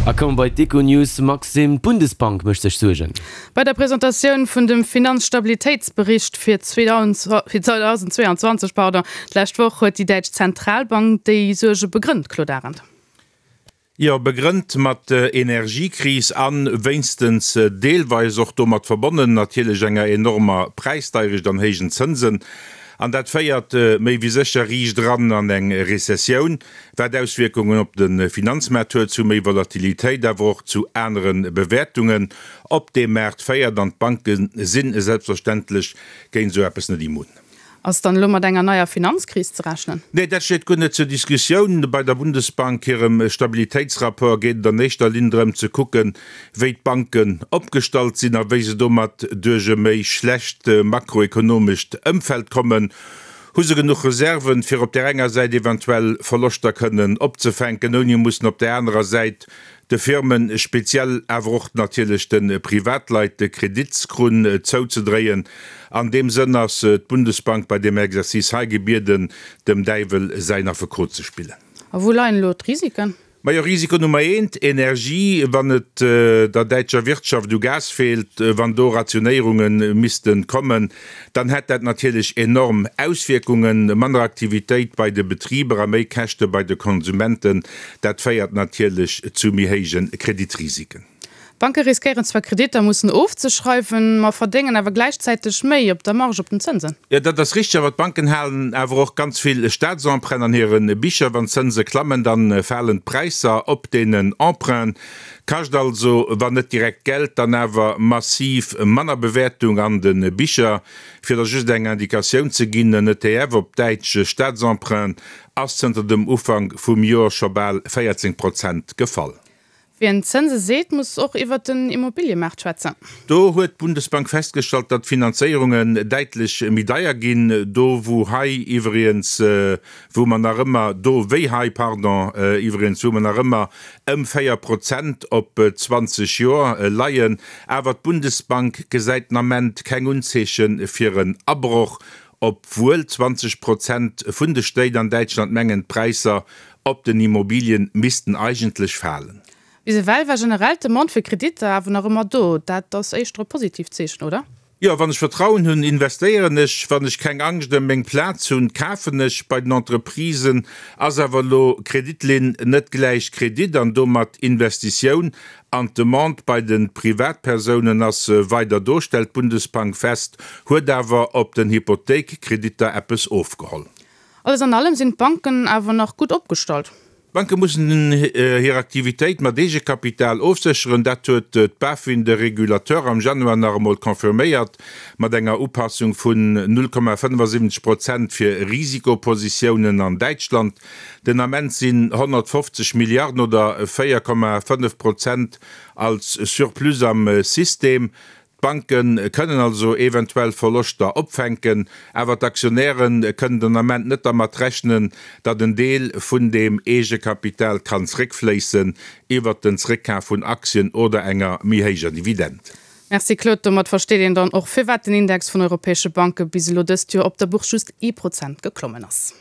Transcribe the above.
A komme bei d'Econews. Maxime, d'Bundesbank mécht sech Suergen. Bei der Presentatioun vun dem Finanzstabilitéitsbericht fir 2022 d'lescht Woch huet déi däitsch Zentralbank déi Suerge begrënnt, Claude Arend. Jo, begrënnt mat der Energiekris a wéinstens deelweis och domat verbonnen natierlech enger enormer Präisdeirecht an héijen Zënsen. An dat féiert méi wéi sécher riicht eran an eng Rezessioun, wat Auswierkungen op de Finanzmaart huet, zu méi Volatilitéit, awer och zu anere Bewäertungen op deem Maart féiert. An d'Banke si selbstverständlech géint esou eppes net immun. Ass dann elo mat enger neier Finanzkris ze rechnen? Nee, dat steet guer net zur Diskussioun. Bei der Bundesbank hirem Stabilitéitsrapport geet et an éischter Linn drëm ze kucken, wéi d'Banken opgestallt sinn a wéi se domat duerch e méi schlecht makroekonomescht Ëmfeld kommen. Hu se genuch Reserven, fir op där enger Säit eventuell Verloschter kënnen opzefänken, ouni mussen op där anerer Säit de Firmen, speziell awer och natierlech de Privatleit, de Kreditskrunn zouzedréien. An deem Sënn ass d'Bundesbank bei deem Exercice hei gebieden, dem Däiwel säin Affekot ze spillen. A wou leien elo d'Risiken? Majo, Risiko Nummer eent, Energie. Wann et der däitscher Wirtschaft u Gas feelt, wann do Rationéierunge misste kommen, dann hätt dat natierlech enorm Auswierkungen, manner Aktivitéit bei de Betriber a méi Käschte bei de Konsumenten. Dat féiert natierlech zu méi héije Kreditrisiken. D'Banke riskéieren zwar Kreditter mussen ofzeschreiwen, ma verdéngen awer gläichzäiteg méi op der Marge op den Zënsen. Jo, dat ass richteg, awer d'Banken halen awer och ganz vill Staatsemprunten an hire Bicher. Wann d'Zënse klammen, da falen d'Präisser op deenen Emprunten. Kascht also, wann net direkt Geld, dann awer massiv manner Bewäertung an de Bicher. Fir der just eng Indikatioun ze ginn, en ETF op däitsch Staatsemprunten ass zënter dem Ufank vum Joer scho bal 14 Prozent gefall. Wien Zënse seet, muss och iwwert den Immobiliëmaart schwätzen. Do huet d'Bundesbank festgestallt, datt d'Finanzéierungen däitlech méi deier ginn. Do wou hei iwwregens, wou mer nach ëmmer, do wéi hei, pardon, iwwregens, wou mer nach ëmmer ëm 4 Prozent op 20 Joer leien. Awer d'Bundesbank gesäit den Ament keng Unzeeche fir en Abroch, obwuel 20 Prozent vun de Stéit an Däitschland mengen, d'Präisser op den Immobilien missten eigentlech falen. Bis ewell war generell d'Demande fir Kreditter awer nach ëmmer do. Dat ass éischter e positiivt Zeechen, oder? Jo, wann ech Vertrauen hunn, investéieren ech. Wann ech keng Angscht ëm meng Plaz hunn, kafen ech. Bei den Entreprisen ass awer elo Kreditlinn net gläich Kredit an domat Investitioun. An d'Demande bei de Privatpersounen ass weider do, stellt d'Bundesbank fest, huet awer op den Hypothéikkreditter eppes ofgeholl. Alles an allem sinn d'Banken awer nach gutt opgestallt. D'Banke mussen hir Aktivitéit mat Eegekapital ofsécheren. Dat huet d'BaFin, de Regulateur, am Januar nach emol confirméiert, mat enger Upassung vun 0,75 Prozent fir Risikopositiounen an Däitschland. Den Ament sinn 150 Milliarden oder 4,5 Prozent als Surplus am System. D'Banke kënnen also eventuell Verloschter opfänken, awer d'Aktionäre kënnen den Ament net dermat rechnen, datt en Deel vun deem Eegekapital kann zréckfléissen iwwert den Zréckkaf vun Aktien oder enger méi héijer Dividend. Merci Claude, domat versteet een dann och firwat den Index vun europäesche Banke bis elo dëst Joer op der Bourse just ee Prozent geklommen ass.